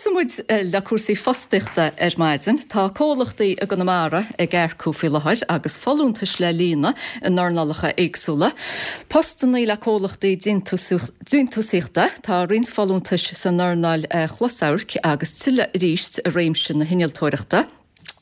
Tosóidh muid le cúrsaí fostaíochta ar maidin. Tá comhlachtaí i gConamara ag earcú faoi láthair agus folúntais le líonadh in earnálacha éagsúla. Postannaí le comhlachtaí déantúsaíochta, tá roinnt folúntais san earnáil chlosamhairc agus tuilleadh arís i réimse na hinnealtóireachta.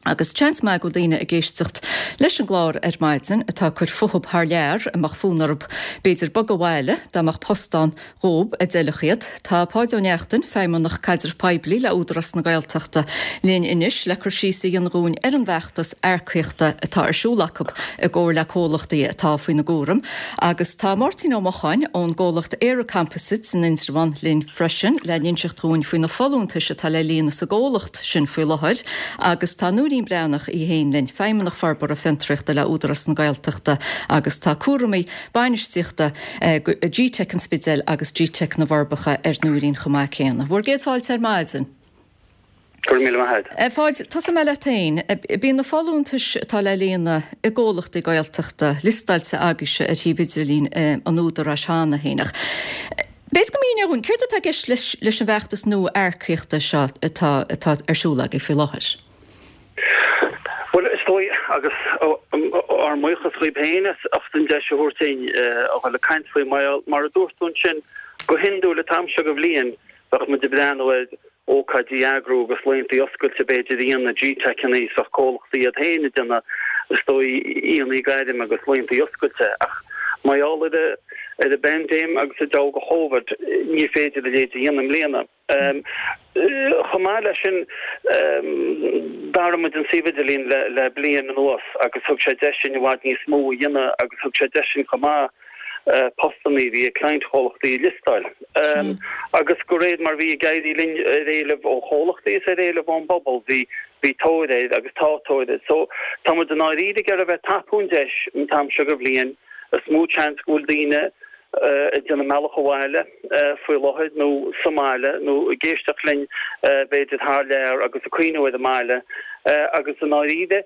Agus seans maith go bhfuil daoine ag éisteacht leis an gclár ar maidin atá ag cur fúthub thar lear, a mbeadh fonn orthu b'fhéidir bogadh abhaile dá mbeadh post ann dhób a d'fheilfeadh iad. Tá Páid Ó Neachtain, Feidhmeannach Caidreamh Poiblí le Údarás na Gaeltachta, linn anois le cur síos a dhéanamh dhúinn ar an bhfeachtas earcaíochta atá ar siúl acu i gcomhar le comhlachtaí atá faoina gcúram. Agus tá Máirtín Ó Mocháin ón gcomhlacht ÉireComposites in Indreabhán linn freisin le n-inseacht dhúinn faoi na folúntais atá le líonadh sa gcomhlacht. sin faoi láthair agus tá Nóirín Breathnach í féin linn, Feidhmeannach Forbartha Fiontraíochta le Údarás na Gaeltachta agus tá cúramaí bainistíochta GTeic an Spidéil agus GTeic na bhForbacha ar Nóirín chomh maith céanna. Bhur gcéad fáilte ar maidin. Go raibh míle maith agat. A Pháid, tosóidh mé leat féin. Bíonn na folúntais atá le líonadh i gcomhlachtaí Gaeltachta liostáilte agaibhse ar shuíomh idirlín an Údaráis cheana féin ach B'fhéidir go míneofá dhúinn, céard atá i gceist leis an bhfeachtas nua earcaíochta seo atá atá ar siúl agaibh faoi láthair? Bhuel, is dóigh, agus ár mbuíochas dhaoib féin as ucht an deis a thabhairt dúinn a dhul ag caint faoi, mar a dúirt tú ansin, go hiondúil an t-am seo de bhliain, bheadh muid ag breathnú ar ócáidí a eagrú agus laethanta oscailte b'fhéidir a dhéanamh, GTeiceanna is bheadh comhlachtaí iad féin ag déanamh is dóigh aonaí gairme agus laethanta oscailte ach mar gheall ar ar an bpaindéim agus an deabhadh de Chóvid ní féidir a leithéid a dhéanamh i mbliana. Chomh maith leis sin d'athraigh muid an suíomh idirlín le bliain anuas agus thug sé deis dúinn i bhfad níos mó a dhéanamh agus thug sé deis dúinn chomh maith postanna a bhí ag cliantchomhlachtaí a liostáil. Agus de réir mar bhí ag éirí linn ar éileamh ó chomhlachtaí is ar éileamh ón bpobal, bhí bhí tóir air agus tá tóir air. So tá muid i ndáiríre ag iarraidh a bheith ag tapú an deis an t-am seo de bhliain. Is mó seans go bhfuil daoine ag déanamh a mbealach abhaile faoi láthair nó sa mbaile nó ag éisteacht linn b'fhéidir thar lear agus ag cuimhniú ar an mbaile agus i ndáiríre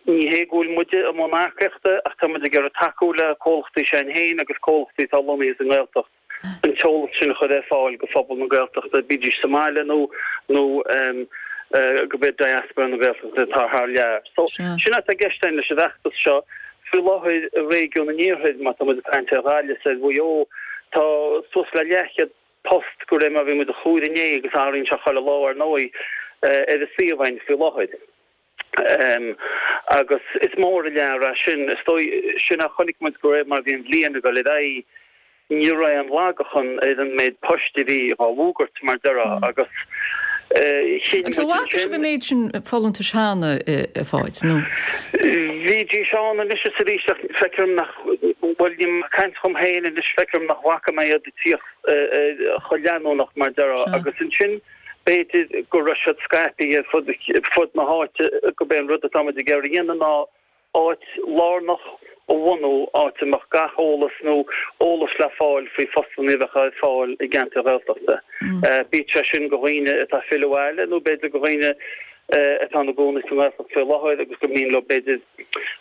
Ní hé go bhfuil muide i mbun earcaíochta ach tá muid ag iarraidh tacú le comhlachtaí s'againn féin agus comhlachtaí atá lonnaithe sa nGaeltacht an t-eolas sin a chur ar fáil go phobal na Gaeltachta, bídís sa mbaile nó nó go b'fhéidir diaspora na Gaeltachta atá thar lear. So, sin atá i gceist againn leis an bhfeachtas seo. Faoi láthair i réigiún an Iarthair, má tá muid ag caint ar Ghaillimh is ar Mhaigh Eo, tá suas le leathchéad post de réir mar a bhí muid ag comhaireamh inné agus athraíonn sé chuile lá ar ndóigh ar an suíomh againn faoi láthair. Agus is mór an lear é sin. Is dóigh, sin a chonaic muid de réir mar a bhí an bhliain ag dul ar aghaidh, ní raibh aon lagachan ar an méid poist a bhí dhá bhfógairt, mar déarfá, agus chinn Agus an muid bhfaca sibh an méid sin folúntais cheana, a Pháid, nó? Bhídís ann anois is arís ach feictear dom nach, bhuel, níl mé ag caint dhom féin anois, feictear dom nach bhfaca mé iad ag tíocht chomh leanúnach, mar déarfá, agus ansin, B'fhéidir go raibh siad scaipthe ar fud na háite, gurb é an rud atá muid ag iarraidh a dhéanamh ná áit lárnach a bhunú, áit a mbeadh gach eolas nó eolas le fáil faoi phostanna a bheadh ar fáil i gceantair Ghaeltachta. Bíodh sé sin do dhaoine atá ag filleadh abhaile nó b'fhéidir do dhaoine atá ina gcónaí sa nGaeltacht faoi láthair agus gur mian leo b'fhéidir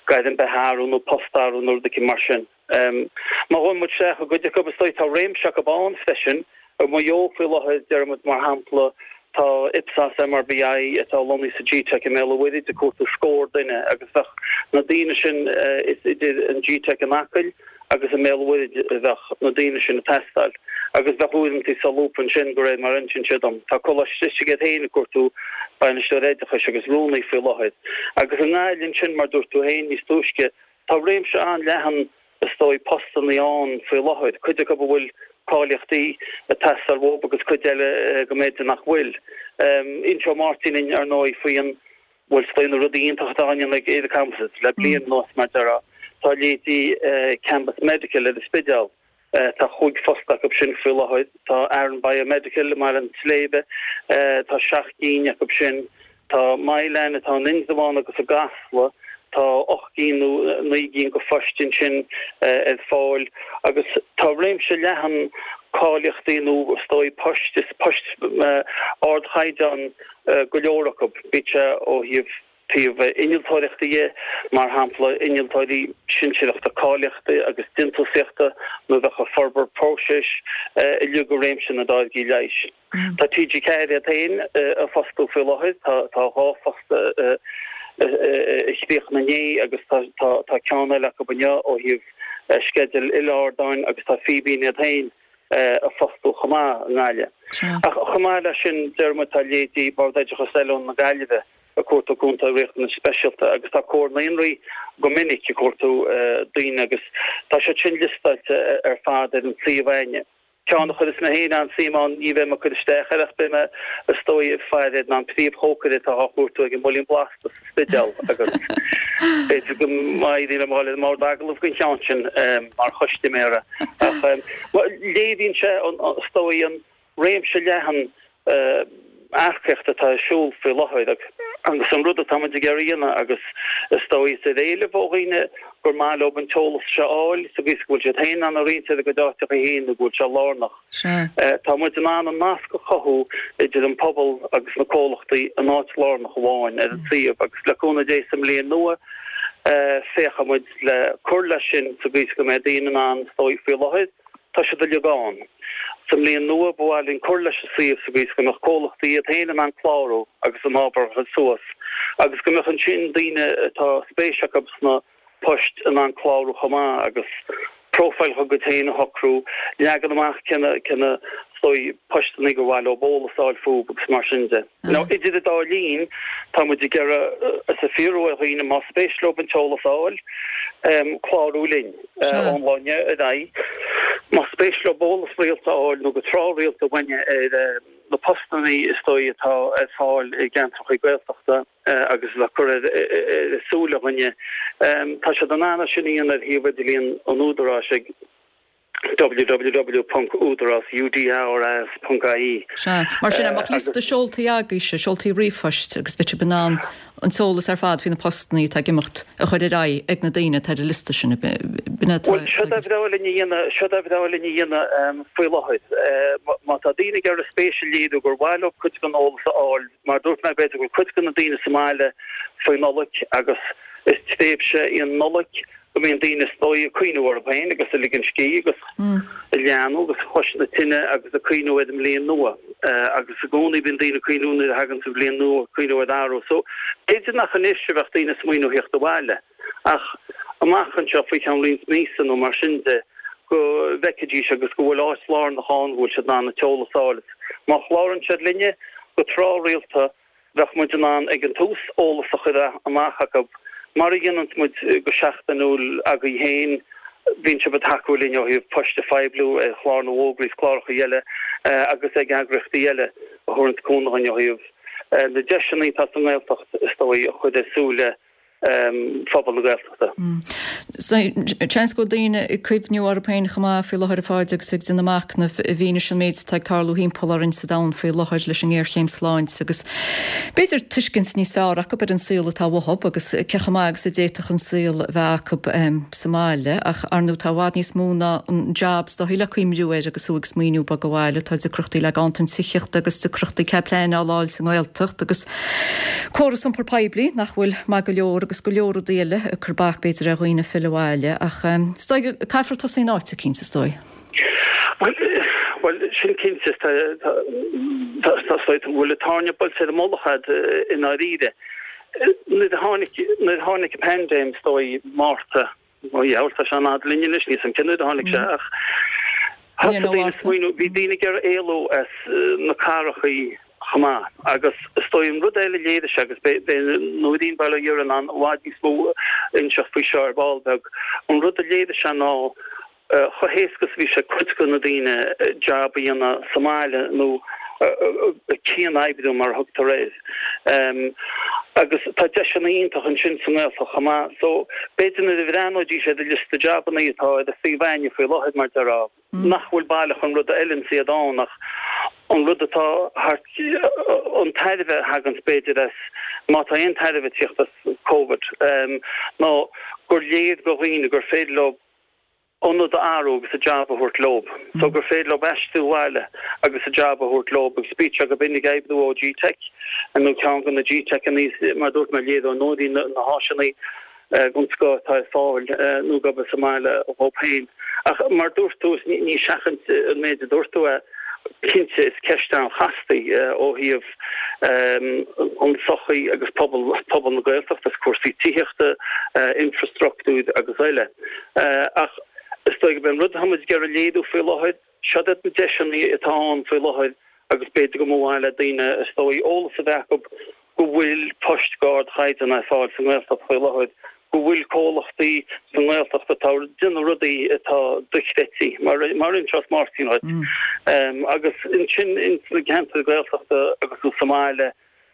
gairm beatha a athrú nó post a athrú nó rud éicint mar sin. Má ghabhann muid isteach i gcuid acu, is dóigh, tá réimse acu ann freisin. I Maigh Eo faoi láthair, déarfaidh muid mar shampla, tá Ipsos MRBI atá lonnaithe sa GTeic i mBéal an Mhuirthead ag cuartú scór duine agus bheadh na daoine sin, is idir an GTeic in Acaill agus i mBéal an Mhuirthead a bheadh na daoine sin ag teastáil. Agus bheadh uaireanta solúbtha ansin, de réir mar a insíonn siad dom. Tá Coláiste Slisigh iad féin ag cuartú bainisteoir oideachais agus rúnaí faoi láthair. Agus i nGaillimh ansin, mar dúirt tú féin níos túisce, Tá réimse an-leathan, is dóigh, postannaí ann faoi láthair, cuid acu a bhfuil cáilíochtaí ag teastáil uathu agus cuid eile go mb'fhéidir nach bhfuil. Inseoidh Máirtín linn, ar ndóigh, faoi an, bhuel, is dóigh na rudaí iontacha atá á ndéanamh ag ÉireComposites le bliain anuas, mar déarfá. Tá leithéidí Cambus Medical ar an Spidéal, Tá chúig phost acu sin faoi láthair. Tá Aran Biomedical i mBaile an tSléibhe, tá seacht gcinn acu sin. Tá Mylan atá in Indreabhán agus i gCasla, tá ocht gcinn nó naoi gcinn de phoist ansin ar fáil. Agus tá réimse leathan cáilíochtaí nó is dóigh poist, is poist ardchaighdeán go leor acu, bíodh sé ó thaobh. Taobh innealtóireachta dhe, mar shampla innealtóirí sinsearachta cáilíochta agus déantúsaíochta nó a bheadh ag forbairt próiseas uilig i réimse na dtáirgí leighis. Tá TG4 iad féin ag fostú faoi láthair, tá 2 phost a chríochnaigh inné agus tá ceann eile acu inniu ó thaobh sceideal uile-ardáin agus tá Fíbín iad féin ag fostú chomh maith i nGaillimh. Ach chomh maith leis sin, deir muid, tá leithéidí Bord Oideachais Oiliúna na Gaillimhe ag cuartú cúntóirí riachtanais speisialta agus tá Comhar Naíonraí go minic ag cuartú daoine agus tá siad sin liostáilte ar fad ar an suíomh againne. Ceann a chuireas mé féin an-suim ann, ní bheidh mé ag cur isteach air ach beidh mé is dóigh ag faire air ná an príomhchócaire atá á chuartú ag an mBuilín Blasta sa Spidéal agus b'fhéidir go n-éireoidh liom a dhul ar an mbord agallaimh don cheann sin mar chustaiméara. Ach léiríonn sé is dóigh an réimse leathan earcaíochta atá ar siúl faoi láthair agus an rud atá muid ag iarraidh a dhéanamh agus is dóigh is ar éileamh ó dhaoine gur maith leo an t-eolas seo a fháil sa gcaoi is go bhfuil siad féin in ann a roinnt ar a gcuid áiteacha féin nó go bhfuil sé lárnach. Tá muid in ann an nasc a chothú idir an pobal agus na comhlachtaí in áit lárnach amháin ar an suíomh agus le cúnamh Dé sa mbliain nua féachfaidh muid le cur leis sin sa gcaoi is go mbeidh daoine in ann is dóigh faoi láthair Tá siad uilig ann. Sa mbliain nua, ba mhaith linn cur leis an suíomh sa gcaoi is go mbeadh comhlachtaí iad féin in ann clárú agus a n-ábhar a chur suas agus go mbeadh ansin daoine atá spéis acu sna poist in ann clárú chomh maith agus profile dá gcuid féin a shocrú, leagan amach cé na cé na is dóigh postanna gur mhaith leo eolas a fháil fúthu agus mar sin de. Now idir an dá linn, tá muid ag iarraidh is ag fiafraí ar dhaoine más spéis leo an t-eolas a fháil, clárú linn ón lá inniu ar aghaidh. Más spéis leo eolas rialta a fháil nó go tráthrialta uainne ar na postanna is dóigh atá ar fáil i gceantracha Gaeltachta agus atá curtha ar súile againne, tá siad in ann é sin a dhéanamh ar shuíomh idirlíon an Údaráis ag. www.udaras, U-D-A-R-A-S, .ie. Sea. Mar sin, an mbeadh liosta seoltaí agaibhse, seoltaí ríomhphoist, agus bheadh sibh in ann an t-eolas ar fad faoi na postanna atá ag imeacht a chur ar aghaidh ag na daoine atá ar an liosta sin, b'in é atá Bhuel, seo ba bhreá linn a dhéanamh, seo ba bhreá linn a dhéanamh faoi láthair. Má tá daoine ag iarraidh spéis a léiriú gur mhaith leo cuid den eolas a fháil, mar a dúirt mé, b'fhéidir go bhfuil cuid de na daoine sa mbaile faoi Nollaig agus is tréimhse í an Nollaig go mbíonn daoine is dóigh ag cuimhniú orthu féin agus ag ligean scíth agus ag leathnú agus cois na tine agus ag cuimhniú ar an mbliain nua agus i gcónaí bíonn daoine ag cuimhniú nuair a thagann an bhliain nua ag cuimhniú ar athrú. So b'fhéidir nach anois a bheadh daoine ag smaoineamh theacht abhaile ach amach anseo faoi cheann roinnt míosa nó mar sin de go bhfeicfidís agus go bhfuil áit lárnach ann go bhfuil siad in ann an t-eolas a fháil. Má chlárann siad linne go tráthrialta Bheadh muid in ann ag an tús eolas a chur amach acu, mar a dhéananns muid go seachtainiúil agaibh féin, bíonn sibh ag tacú linn ó thaobh poist a phoibliú ar chlár na bhfógraí is cláracha eile agus ag eagraíochtaí eile a thabharanns cúnamh dhuinn ó thaobh na deiseanna atá sa nGaeltacht is dóigh a chur ar súile phobal na Gaeltachta. Seans go bhfuil daoine ag cuimhniú orthu féin chomh maith faoi láthair a Pháid agus ag déanamh machnaimh i bhfianaise an méid atá ag tarlú thimpeall orainn sa domhan faoi láthair leis an ngéarchéim sláinte agus b'fhéidir tuiscint níos fearr acu ar an saol atá uathu agus cé chomh maith agus a d'fhéadfadh an saol a bheith acu sa mbaile ach ar ndóigh tá i bhfad níos mó ná an jab is dóigh le cuimriú air agus thú ag smaoineamh bogadh abhaile. Tá deacrachtaí le ganntan tithíochta agus deacrachtaí cead pleanála a fháil sa nGaeltacht agus Córas iompair poiblí nach bhfuil maith go leor agus go leor rudaí eile ag cur bac b'fhéidir ar dhaoine filleadh abhaile ach is dóigh caithfear tosaí in áit eicínt is dóigh. Bhuel, bhuel, sin cinnte, tá, tá, tá, tá, tá, bhfuil an tairne buailte ar an mullach a'd i ndáiríre. Nuair a tháinig, nuair a tháinig an paindéim is dóigh, Márta, Ó dheabhail, tá sé an-fhada linn anois, níl 's a'm cén uair a tháinig sé ach thosaigh daoine ag smaoineamh, bhí daoine ag iarraidh éalú as na cathrachaí chomh maith agus is dóigh an rud eile a léirigh sé agus beidh Nóirín Bail ó Dhia uirthi in ann i bhfad níos mó a inseacht faoi seo ar ball beag, an rud a léirigh sé ná chomh héasca is a bhí sé cuid de na daoine jab a dhéanamh sa mbaile nó cian-oibriú mar a thugtar air. Agus tá deiseanna iontach ansin sa nGaeltacht chomh maith. So b'fhéidir nuair a bhreathnóidís ar an liosta jabanna atá ar an suíomh againne faoi láthair mar déarfá, nach bhfuil baileach an rud a fheileanns iad ann ach an rud atá thart, an tairbhe a thaganns b'fhéidir as, má tá aon tairbhe ag tíocht as Covid, ná gur léir do dhaoine gur féidir leo. Ionad a athrú agus a jab a thabhairt leob so gur féidir leob aistriú abhaile agus a jab a thabhairt leob agus bíodh sé go b'in ag oibriú ó GTeic nó ceann de na GTeiceanna mar dúirt mé léireoidh Nóirín na háiseanna den scoth atá ar fáil nó gurb sa mbaile dhób féin. Ach mar dúirt tú ní seachaint an méid a dúirt tú é. Cinnte, is ceist an-chasta í ó thaobh an tsochaí agus pobal pobal na Gaeltachta, is cúrsaí tithíochta, infreastruchtúir agus eile. Ach is dóigh gurb é an rud atá muid ag iarraidh léiriú faoi láthair, seod iad na deiseanna atá ann faoi láthair agus b'fhéidir go mba mhaith le daoine is dóigh eolas a bheith acu go bhfuil poist d'ardchaighdeán ar fáil sa nGaeltacht faoi láthair, go bhfuil comhlachtaí sa nGaeltacht atá ag déanamh rudaí atá dochreidte, mar mar a inseos Máirtín dhuit. Agus ansin ins na ceantair Gaeltachta agus sa mbaile,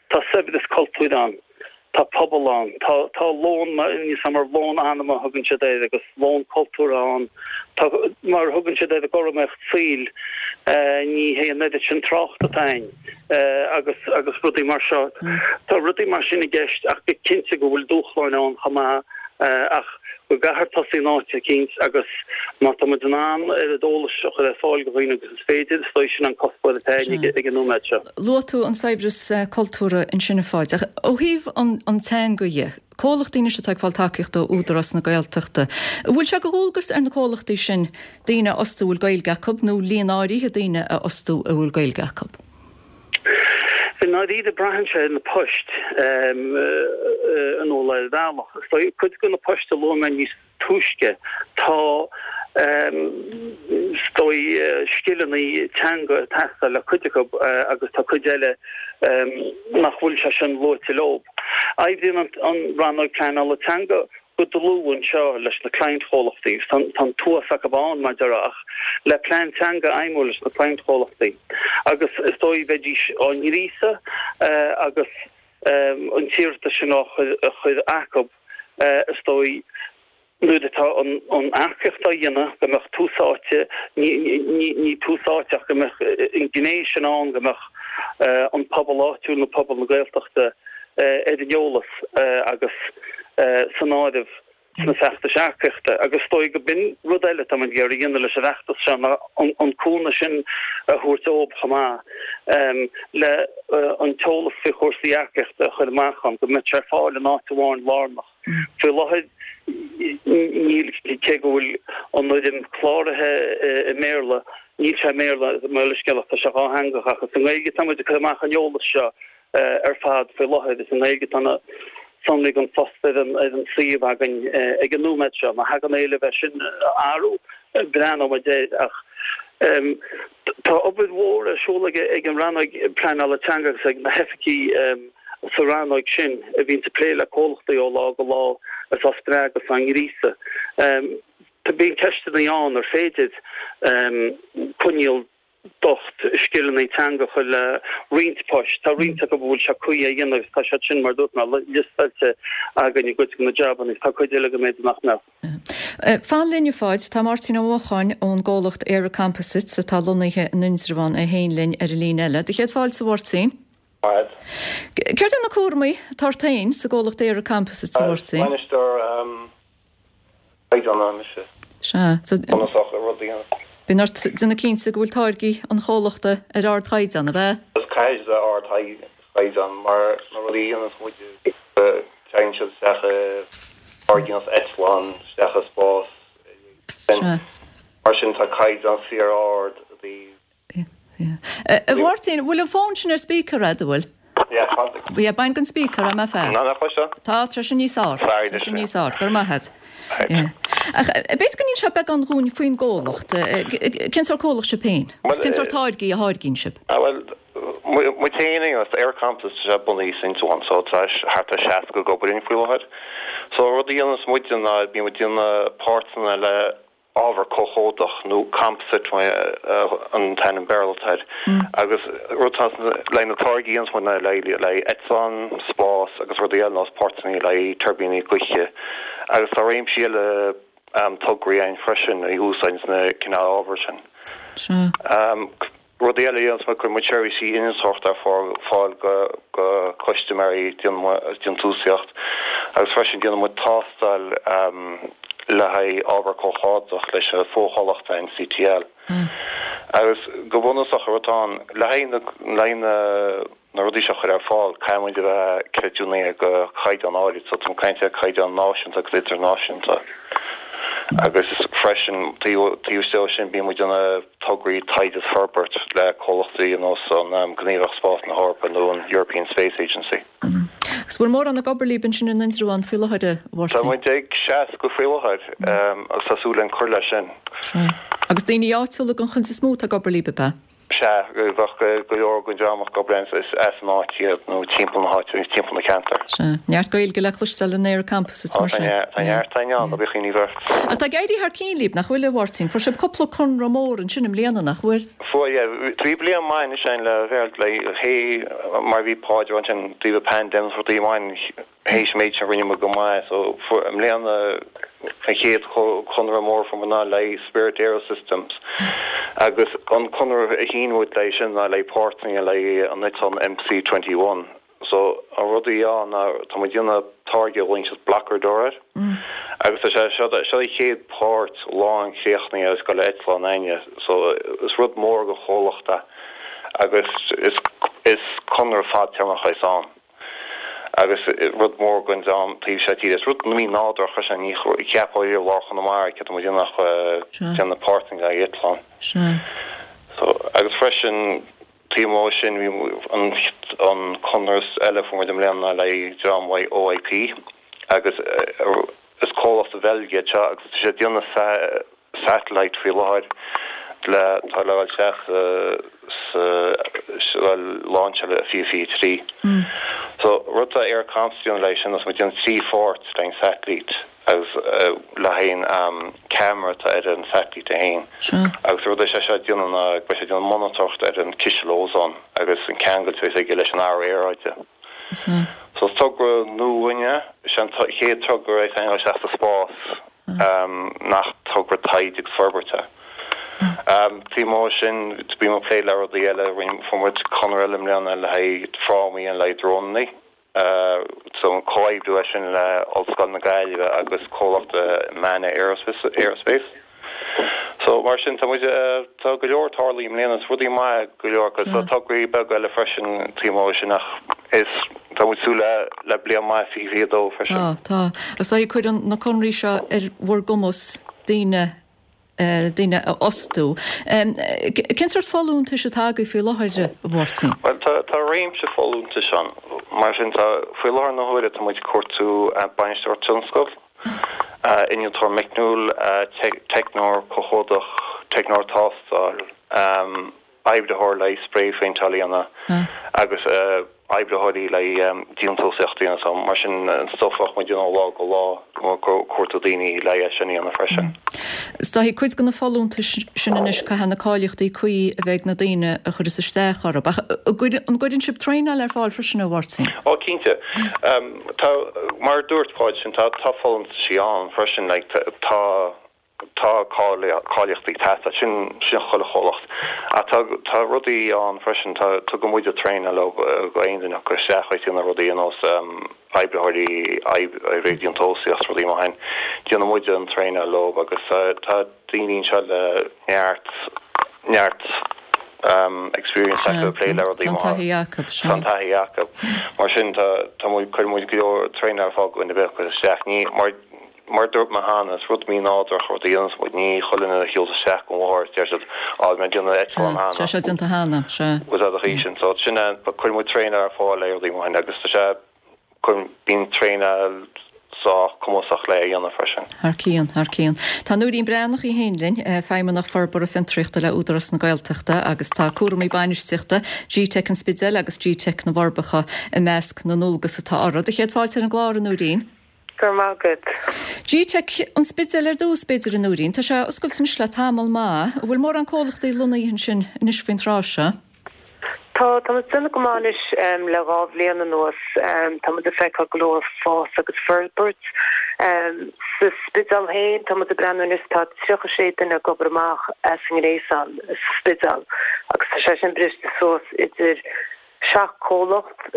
tá saibhreas cultúir ann, tá pobal ann, tá tá lón, níos mar lón anama a thugann siad air agus lón cultúrtha ann, tá mar a thugann siad air an chothromaíocht saoil, ní hé an oiread sin trácht atá ann. agus agus rudaí mar seo. Tá rudaí mar sin i gceist ach go cinnte go bhfuil dúshláin ann chomh maith ach go gcaithfear tosaí in áit eicínt agus má tá muid in ann oiread eolais a chur ar fáil do dhaoine agus is féidir, is dóigh sin an cuspóir atá againn ag an nóiméad seo. Luaigh tú an saibhreas cultúrtha ansin a Pháid, ach ó thaobh an teanga dhe, comhlachtaí anois atá ag fáil tacaíocht ó Údarás na Gaeltachta, an bhfuil sé de dhualgas ar na comhlachtaí sin daoine a fhostú a bhfuil Gaeilge acu nó líon áirithe daoine a fhostú a bhfuil Gaeilge acu? I ndáiríre braitheann sé ar na poist in ar bhealach. Is dóigh cuid de na poist a luaigh mé níos túisce, tá is dóigh scileanna teanga ag teastáil le cuid acu agus tá cuid eile nach bhfuil sé sin luaite leo. Oibríonn an Rannóg Pleanála Teanga go dlúth anseo leis na cliantchomhlachtaí agus tá an t-uas acu ann, mar a déarfá, ach le plean teanga a fheidhmiú leis na cliantchomhlachtaí agus is dóigh bheidís á ngríosadh agus an t-iarratas sin á chur acu, is dóigh, nuair atá an earcaíocht á dhéanamh, go mbeadh tús áite, ní tús áite ach go mbeadh an ghné sin ann, go mbeadh an pobal áitiúil nó pobal na Gaeltachta ar an eolas agus san áireamh sna feachtais earcaíochta. Agus is dóigh go b'in rud eile atá muid ag iarraidh a dhéanamh leis an bhfeachtas seo ná an cúnamh sin a thabhairt dóibh chomh maith le an t-eolas faoi chúrsaí earcaíochta a chur amach ann, go mbeadh sé ar fáil in áit amháin lárnach. Faoi láthair níl, cé go bhfuil an fhoirm cláraithe i mBéarla, níl sé i mBéarla, mo leithscéal, ach tá sé dhátheangach ach is i nGaeilge atá muid ag cur amach an eolas seo ar fad faoi láthair. Is i nGaeilge atá na sonraí don phost ar an ar an suíomh againn ag an nóiméad seo. Má thagann éileamh é sin a athrú, breathnóidh muid air ach tá obair mhór ar siúl ag ag an Rannóg Pleanála Teanga agus ag na hoifigigh sa rannóg sin a bhíonns ag plé le comhlachtaí ó lá go lá is á spreagadh is á ngríosadh. Bíonn ceisteanna ann ar féidir coinníoll docht scileanna teanga a chur le roinnt poist. Tá roinnt acu a bhfuil sé cuí a dhéanamh agus tá siad sin, mar a dúirt mé, liostáilte againn i gcuid de na jabanna agus tá cuid eile go mb'fhéidir nach mbeadh. Fan linn, a Pháid. Tá Máirtín Ó Mocháin ón gcomhlacht ÉireComposites atá lonnaithe in Indreabhán é féin linn ar an líne eile. Do chéad fáilte, a Mháirtín. Fad. Céard é na cúramaí atá ort féin sa gcomhlacht ÉireComposites, a Mháirtín? Bainisteoir caighdeánaithe mise. Sea. Bunúsach le rud a dhéanamh. Bíonn ort déanamh cinnte go bhfuil táirgí an chomhlachta ar ardchaighdeán, ab ea? Is caithfidh sé ardchaighdeán mar na rudaí a dhéananns muid téann siad isteach i táirgí ar nós eitleán, isteach i spás. Sea. Mar sin tá caighdeán fíor-ard i dtaobh A Mháirtín, bhfuil an fón sin ar speaker a'd, an bhfuil? Yeah, tá. Yeah, bain den speaker é, más fearr. Ná, nach bhfuil seo? Tá, tá sé níos fhearr. Sorry, Tá sé níos fhearr. Go raibh maith a'd. Yeah. Ach b'fhéidir go n-inseofá beagán dhúinn faoin gcomhlacht. Cén sórt comhlacht sibh féin? Agus cén sórt táirgí a tháirgíonn sibh? Ah, bhuel, muid féin, you know, ÉireComposites, tá sé bunaithe san Indreabhán, so tá thart ar 60 ag obair linn faoi láthair. So rud a dhéananns muide ná bíonn muid ag déanamh páirteanna le ábhar comhchomhdach, nó composite an t-ainm Béarla atá air, agus rud atá le haghaidh na táirgí a dhéananns muid ná le haghaidh eitleán, spás agus rudaí eile, nós páirteanna le haghaidh tuirbíní gaoithe agus tá réimsí eile tograí againn freisin a úsáideann na cineál ábhair sin. Rudaí eile a dhéananns muid, cuireann muid seirbhísí innealtóireachta ar fáil go custaiméirí, déantúsaíocht, agus freisin déanann muid tástáil. le haghaidh ábhar comhchomhdach leis an bhfochomhlacht an CTL. Agus go bunúsach an rud atá ann, le haghaidh na, le haghaidh na, na rudaí seo a chur ar fáil, caithfidh muid a bheith creidiúnaithe go caighdeán áirid, so tá mé ag caint ar caighdeán náisiúnta agus idirnáisiúnta. Agus freisin, taobh, taobh istigh de sin, bíonn muid ag déanamh tograí taighde is forbairt le comhlachtaí ar nós an Gníomhaireacht Spáis na hEorpa nó an European Space Agency. Agus bhfuil mórán ag obair libh ansin in Indreabhán faoi láthair, a Mháirtín? Tá muid ag 60 faoi láthair agus tá súil againn cur leis sin. Sea. Agus daoine áitiúla den chuid is mó atá ag obair libh, ab ea? Sea, bheadh go leor den dream ag obair linn, is as an áit iad nó timpeall na háite, timpeall na ceantair. Sea. Neart Gaeilge le cloisteáil in ÉireComposites mar sin. Tá neart againn ann, ná bíodh aon ní ort. Ach tá ag éirí thar cionn libh, nach bhfuil, a Mháirtín? Fuair sibh cúpla conradh mór ansin i mbliana, nach bhfuair? Fuair, yeah. Bhí bliain maith anois againn le bheith le hé mar bhí Páid ansin taobh an pandemic rudaí amháin théis an méid sin rinne muid go maith so fuair i mbliana an chéad chonradh mór fuair muid ná le Spirit AeroSystems agus an conradh a shín muid le sin ná le páirteanna le an eitleán MC-21. So, an rud a bhí ann ná tá muid ag déanamh táirge a ghlaonn siad blocker door air agus tá sé seo seo an chéad páirt lánchríochnaithe agus ag dul ar eitleán againne. So, is rud mór don chomhlacht é agus is is conradh fadtéarmach é ann agus rud mór don dream taobh seo tíre. Is rud mí-nádúrtha é sin, ní cheapfá riamh lár Chonamara céard tá muid ag déanamh ach déanamh páirteanna le haghaidh eitleán. So, agus freisin Taobh amuigh de sin bhí an conradh eile a fuair muid i mbliana le dream OIP agus is comhlacht sa Bheilg iad seo agus tá siad ag déanamh satellite faoi láthair le tá le dhul isteach sa sa lainseáil i 2023. So rud atá ÉireComposites ag déanamh leis sin is muid ag déanamh 3 pháirt den satellite. agus le haghaidh an ceamara atá ar an satailít é féin. Agus rud é sé seo ag déanamh ná beidh sé ag déanamh monatóireacht ar an ciseal ózóin agus an ceangal a bheas aige leis an athrú aeráide. So is togra nua dhúinne, is é an chéad togra é a tháinig isteach sa spás nach togra taighde agus forbairt é. Taobh amuigh de sin, bíonn muid ag plé le rudaí eile, fuair muid conradh eile i mbliana le haghaidh frámaí le haghaidh drónannaí. So an comhoibriú é sin le Ollscoil na Gaillimhe agus comhlacht Manna Aerospace. So mar sin tá muid, tá go leor tarlaithe i mbliana, is rudaí maithe go leor agus tá tograí beaga eile freisin taobh amuigh de sin ach is, tá muid súil le le bliain maith 2022 freisin. Tá, tá. Agus cuireann na conraí seo ar bhur gcumas daoine daoine a fhostú. Cén sórt folúntais atá agaibh faoi láthair, a Mháirtín? Bhuel, tá, tá réimse folúntais ann. Mar sin, tá, faoi láthair na huaire, tá muid ag cuartú bainisteoir tionscail, innealtóir meicniúil, teicneoir comhchomhdach, teicneoir tástáil, oibritheoir le haghaidh spraephéinteáil a dhéanamh agus oibritheoirí le haghaidh déantúsaíocht a dhéanamh. So mar sin an stuif a bheadh muid ag déanamh ó lá go lá, ag cuartú daoine le haghaidh é sin a dhéanamh freisin. Is dóigh cuid de na folúntais sin anois caithfidh na cáilíochtaí cuí a bheith ag na daoine a chuireas isteach orthu. Ach an gcuireann sibh traenáil ar fáil freisin, a Mháirtín? Ó cinnte. Tá, mar a dúirt Páid sin, tá folúntaisí ann freisin, like tá Tá cáilíochtaí ag teastáil, sin sin chuile chomhlacht. Ach tá tá rudaí ann freisin, tá tugann muide traenáil leo go aon duine acu isteach ag déanamh rudaí ar nós oibritheoirí oibreoirí déantúsaíocht rudaí mar sin. Déanann muide an traenáil leo agus tá daoine anseo le neart neart experience acu ag plé le rudaí mar Tá an taithí acu, sea. Tá an taithí acu. Mar sin tá tá muid cuireann muid go leor traenáil ar fáil go duine ar bith a chuir isteach. Ní mar Mar a dúirt mé cheana, is rud mí-nádúrach rud a dhéanas muid, ní chuile dhuine a shiúls isteach go bhóthar is deir siad, á, bhí mé ag déanamh eitleán cheana. Sea, sé déanta cheana, sea. Bhfuil a fhios agat sin. So, sin é, cuireann muid traenáil ar fáil le rudaí mar sin agus tá sé, cuireann, bíonn traenáil sách cumasach le a dhéanamh freisin. Thar cionn, thar cionn. Tá Nóirín Breathnach í féin linn, Feidhmeannach Forbartha Fiontraíochta le Údarás na Gaeltachta agus tá cúramaí bainistíochta GTeic an Spidéil agus GTeic na bhForbacha i measc na ndualgas atá uirthi. Do chéad fáilte ar an gclár, a Nóirín. Go raibh maith agat. GTeic an Spidéil ar dtús, b'fhéidir, a Nóirín. Tá sé oscailte anois le tamall maith. An bhfuil mórán comhlachtaí lonnaithe ansin anois faoin tráth seo? Tá, tá muid ag déanamh go maith anois le 2 bhliain anuas. Tá muid ag feiceáil go leor fás agus forbairt. Sa Spidéal féin, tá muid ag breathnú anois, tá 36 duine ag obair amach as an ngréasán sa Spidéal agus tá sé sin briste suas idir 7 comhlacht.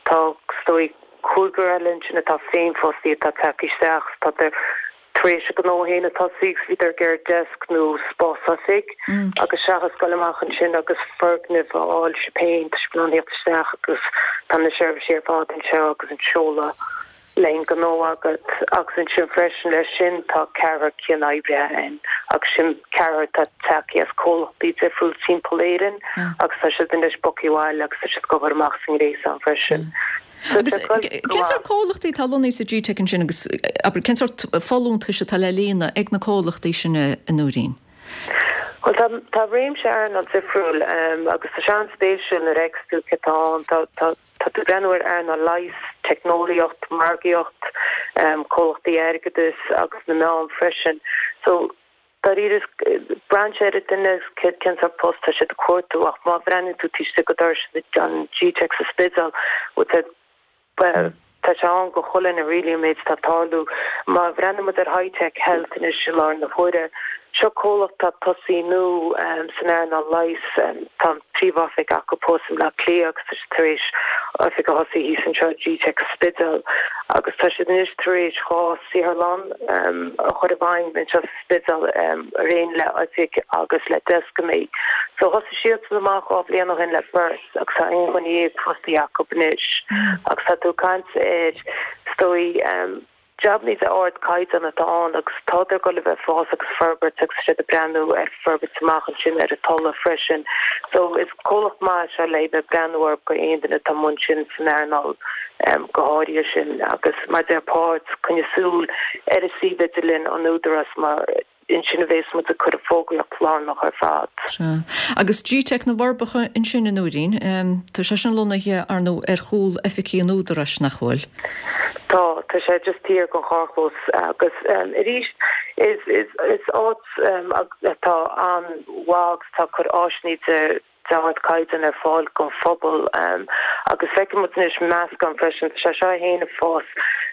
Tá, is dóigh, cúigear eile ansin atá féinfhostaithe atá tagtha isteach. Tá. tar éis a ngnó féin a thosaí agus bhíodar ag iarraidh desk nó spás oifig agus seachas dul amach ansin agus foirgneamh a fháil sibh féin, tá sibh in ann theacht isteach agus tá na seirbhísí ar fad anseo agus an seoladh le an gnó agat agus ansin freisin leis sin tá ceathrar cianoibrithe ann agus sin ceathrar atá tagtha as comhlachtaí difriúil timpeall Éirinn agus tá siad anois bogtha abhaile agus tá siad ag obair amach sa ngréasán freisin. Agus cén sórt comhlachtaí atá lonnaithe sa Gteic ansin agus abair cén sórt folúntais atá le líonadh ag na comhlachtaí sin a Nóirín? Bhuel tá tá réimse earnáil difriúil agus tá sé an-spéisiúil nuair a fheiceas tú cé atá ann. Tá tá Tá tú ag breathnú ar earnáil leighis, teicneolaíocht, margaíocht, comhlachtaí airgeadais agus na meáin freisin. So, dáiríre, braitheann sé ar an duine cén sórt post tá siad ag cuartú ach má bhreathnaíonn tú taobh istigh de dhoras an Gteic sa Spidéal, bhuel, tá sé ann go chuile dhuine really an méid atá ag tarlú. Má bhreathnaíonn muid ar Hitech Health anois i láthair na huaire, seo comhlacht atá ag tosaí nua san earnáil leighis. Tá an príomhoifig acu thuas i mBleá Cliath agus tá siad tar éis oifig a thosaí thíos anseo i Gteic sa Spidéal agus tá siad anois tar éis 2 saotharlann a chur i bhfeidhm anseo sa Spidéal araon le oifig agus le deascanna. So thosaigh siadsan amach 2 bhliain ó shin le beirt agus tá aon dhuine dhéag fostaithe acu anois agus tá tú ag caint ar is dóigh Jabannaí de ardchaighdeán atá ann agus tádar ag dul a bheith ag fás agus forbairt agus siad ag breathnú ar forbairt amach ansin ar an Tulaigh freisin. So is comhlacht maith é seo le bheith ag breathnú orthu go aon duine atá amuigh ansin san earnáil go háirithe sin agus mar a deir Páid, coinnigh súil ar an suíomh idirlín an Údarás mar Ansin a bhéas muid ag cur an fógraíocht lárnach ar fad. Sea. Agus Gteic na bhForbacha ansin, a Nóirín, tá sé sin lonnaithe, ar ndóigh, ar chúl oifigí an Údaráis, nach bhfuil? Tá, tá sé just thiar den charrchlós agus arís is, is, is áit atá an-mhaith agus atá ag cur áiseanna de, d'ardchaighdeán ar fáil don phobal agus feiceann muid anois meascán freisin, tá sé seo féin ag fás.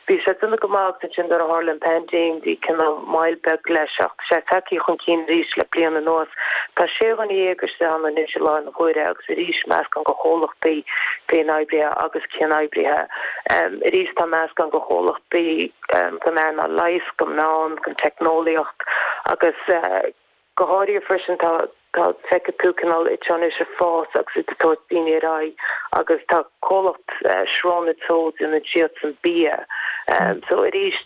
Bhí sé ag déanamh go maith agus ansin nuair a tharla an paindéim bhí cineál moill beag leis ach tá sé tagtha chun cinn arís le bliain anuas. Tá sé dhuine dhéag istigh ann anois i láthair na huaire agus arís meascán de chomhlachtaí féinoibrithe agus cianoibrithe. Arís tá meascán de chomhlachtaí den earnáil leighis, den meán, den teicneolaíocht agus Go háirithe freisin tá tá feicfidh tú cineál iad seo anois ag fás agus iad ag tabhairt daoine ar aghaidh agus tá comhlacht Srón Teo déanann siadsan bia. So arís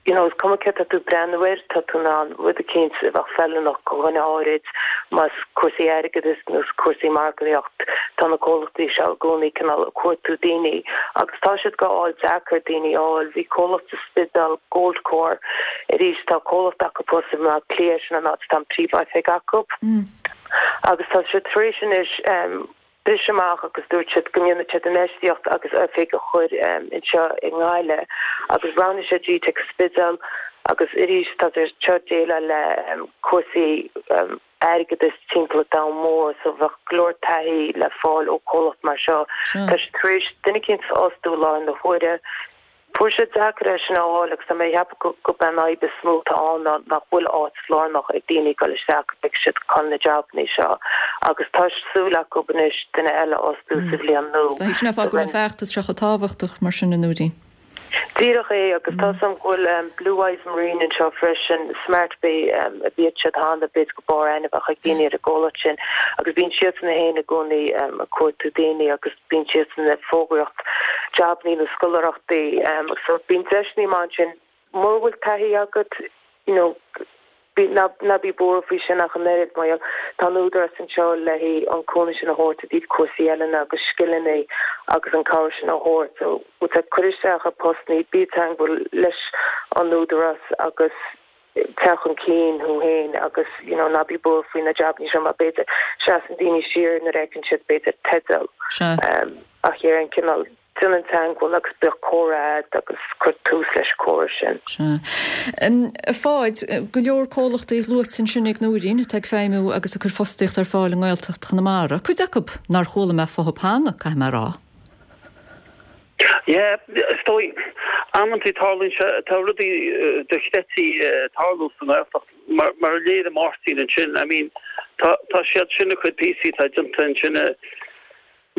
you know is cuma céard tá tú ag breathnú air tá tú in ann rud eicínt a bheadh feiliúnach do dhuine áirid más cúrsaí airgeadais nó cúrsaí margaíocht tá na comhlachtaí seo i gcónaí cineál ag cuartú daoine agus tá siad go fháil deacair daoine a fháil. Bhí comhlacht sa Spidéal Goldcore Arís, tá comhlacht acu thuas i mBleá Cliath, sin an áit atá an príomhoifig acu. Agus tá siad tar éis anois briseadh amach agus dúirt siad go ndéanfaidh siad infheistíocht agus oifig a chur anseo i nGaillimh. Agus roghnaigh siad Gteic Spidéal agus arís tá siad seo ag déileáil le cúrsaí airgeadais timpeall an domhan mór so bheadh go leor taithí le fáil ó comhlacht mar seo. Tá siad tar éis duine eicínt a fhostú i láthair na huaire. Fuair sé deacair é sin a fháil agus tá mé ag ceapadh gurb é an fhadhb is mó atá ann ná nach bhfuil áit lárnach ag daoine ag dul isteach go bhfeicfidh siad chun na jabannaí seo agus tá súil acu anois duine eile a fhostú sa bhliain nua. Sin é an fáth go bhfuil an feachtas seo chomh tábhachtach mar sin, a Nóirín. Díreach é, agus tá 's a'm go bhfuil Blue Eyes Marine anseo freisin, Smart Bay a bhíodh siad cheana, b'fhéidir go mb'fhearr aithne a bheadh ag daoine ar an gcomhlacht sin, agus bíonn siadsan féin i gcónaí ag cuartú daoine agus bíonn siadsan ag fógraíocht jabannaí nó scoláireachtaí, so bíonn deiseanna maith ansin. Mura bhfuil taithí agat, you know, Ná bí buartha faoi sin ach an oiread, mar gheall, tá an Údarás anseo le haghaidh an cúnamh sin a thabhairt i dtaobh cúrsaí oiliúna agus scileanna agus an cabhair sin a thabhairt. So, cuir isteach ar postannaí, bí i dteangmháil leis an Údarás agus téigh chun cinn thú féin agus, you know, ná bí buartha faoi na jabannaí seo mar b'fhéidir seasann daoine siar nuair a fheiceann siad b'fhéidir teideal. Ach ar an cineál. Déan an teangmháil agus bíodh comhrá agat agus cuir tús leis an comhrá sin. Sea. A Pháid, go leor comhlachtaí luaite ansin ag Nóirín atá ag feidhmiú agus ag cur fostaíocht ar fáil i nGaeltacht Chonamara. Cuid acu nár chuala mé fúthu cheana, caithfidh mé a rá. Yeah, is dóigh, amantaí tarlaíonn sé, tá rudaí dochreidte ag tarlú sa nGaeltacht, mar mar a léirigh Máirtín ansin, I mean, tá tá siad sin ag cur píosaí atá déanta ansin i.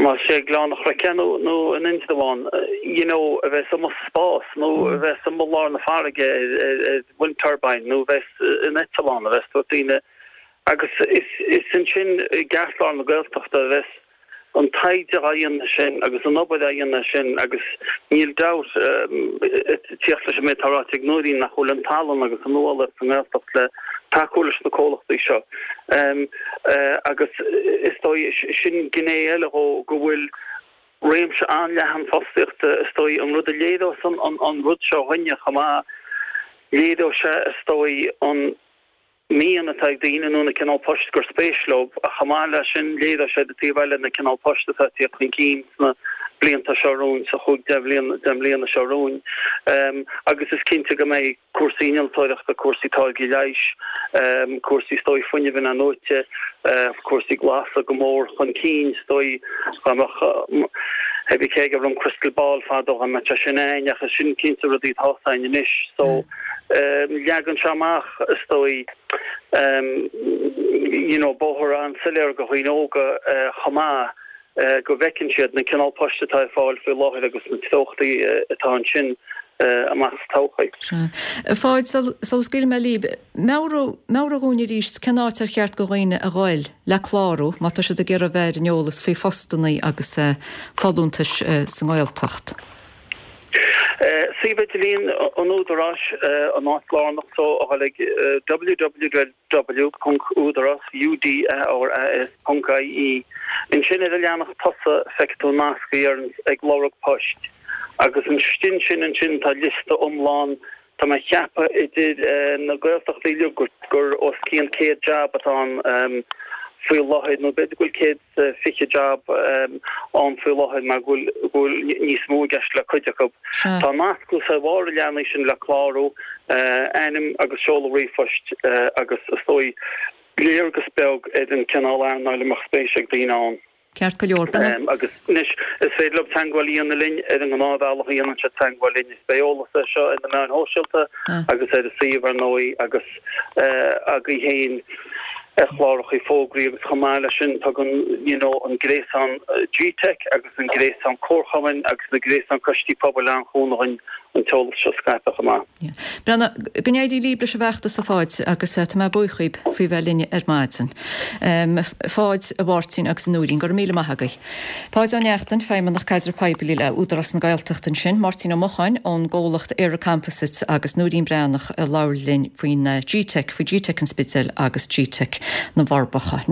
Más é Gleann an Chnoic nó nó in Indreabhán, you know, a bheas amuigh sa spás nó a bheas amuigh i lár na farraige ar ar wind turbine nó a bheas in eitleán, a bheas tabhairt daoine agus is is ansin i gceartlár na Gaeltachta a bheas an taighde á dhéanamh sin agus an obair á dhéanamh sin agus níl dabht ag tíocht leis an méid atá ráite ag Nóirín nach bhfuil an tallann agus an nuálaíocht sa nGaeltacht le tacú leis na comhlachtaí seo. Agus is dóigh, sin gné eile dhó, go bhfuil réimse an-leathan fostaíochta, is dóigh, an rud a léireos an rud seo dhúinne chomh maith, léireoidh sé, is dóigh, an mian atá ag daoine nó na cineál poist gur spéis leo, ach chomh maith leis sin, léireoidh sé ar an taobh eile na cineál poist atá ag tíocht chun cinn sna blianta seo romhainn, sa chúig, deich mbliana seo romhainn. Agus is cinnte go mbeidh. cúrsaí innealtóireachta, cúrsaí táirgí leighis, cúrsaí is dóigh fuinnimh inathnuaite, cúrsaí glasa go mór chun cinn is dóigh dá mbeadh pé bí cé aige raibh an crystal ball fadó dá mbeadh sé sin a'ainn ach is sin cinnte rudaí atá a'ainn anois so leagann sé amach is dóigh you know bóthar an-soiléir do dhaoine óga chomh maith go bhfeiceann siad na cineál poist atá ar fáil faoi láthair agus na treochtaí atá ansin amach sa todhchaí. Sea. A Pháid, sula scaoilfidh mé libh, meabhraigh, meabhraigh dhúinn arís cén áit ar cheart do dhaoine a ghoil le clárú má tá siad ag iarraidh a bheith ar an eolas faoi phostannaí agus folúntais sa nGaeltacht. Suíomh idirlín an Údaráis, an áit lárnach so a ghoil ag www. www.udaras, U-D-A-R-A-S, ponc IE. Ansin ar an leathanach tosaigh feicfidh tú nasc a deireanns ag lorg poist agus istigh ansin ansin tá liosta iomlán, tá mé a cheapadh idir na Gaeltachtaí uilig gur os cionn 100 jab atá ann faoi láthair nó b'fhéidir go bhfuil 120 jab ann faoi láthair mar go bhfuil níos mó i gceist le cuid acu. Tá nasc thuas ar bharr an leathanaigh sin le clárú, ainm agus seoladh ríomhphoist agus is dóigh léargas beag ar an cineál earnáil a mbeadh spéis ag daoine ann. Ceart go leor. Agus anois is féidir leo teagmháil a dhéanamh linn ar an ngnáthbhealach a dhéanann siad teagmháil linn. Is beidh eolas air seo ar na meáin shóisialta agus ar an suíomh ar ndóigh agus agaibh féin ar chláracha fógraí agus chomh maith leis sin tugann you know an gréasán GTeic agus an gréasán comharchumainn agus na gréasán coistí pobail an-chúnamh dhúinn an t-eolas seo a scaipeadh chomh maith. Yeah. Breandán, go n-éirí libh leis an bhfeachtas a Pháid agus tá mé buíoch dhíbh faoi bheith linn ar maidin. A Pháid, a Mháirtín agus a Nóirín, go raibh míle maith agaibh. Páid Ó Neachtain, Feidhmeannach Caidrimh Poiblí le Údarás na Gaeltachta ansin, Máirtín Ó Mocháin ón gcomhlacht ÉireComposites agus Nóirín Breathnach a labhair linn faoin GTeic, faoi GTeic an Spidéil agus GTeic na bhForbacha.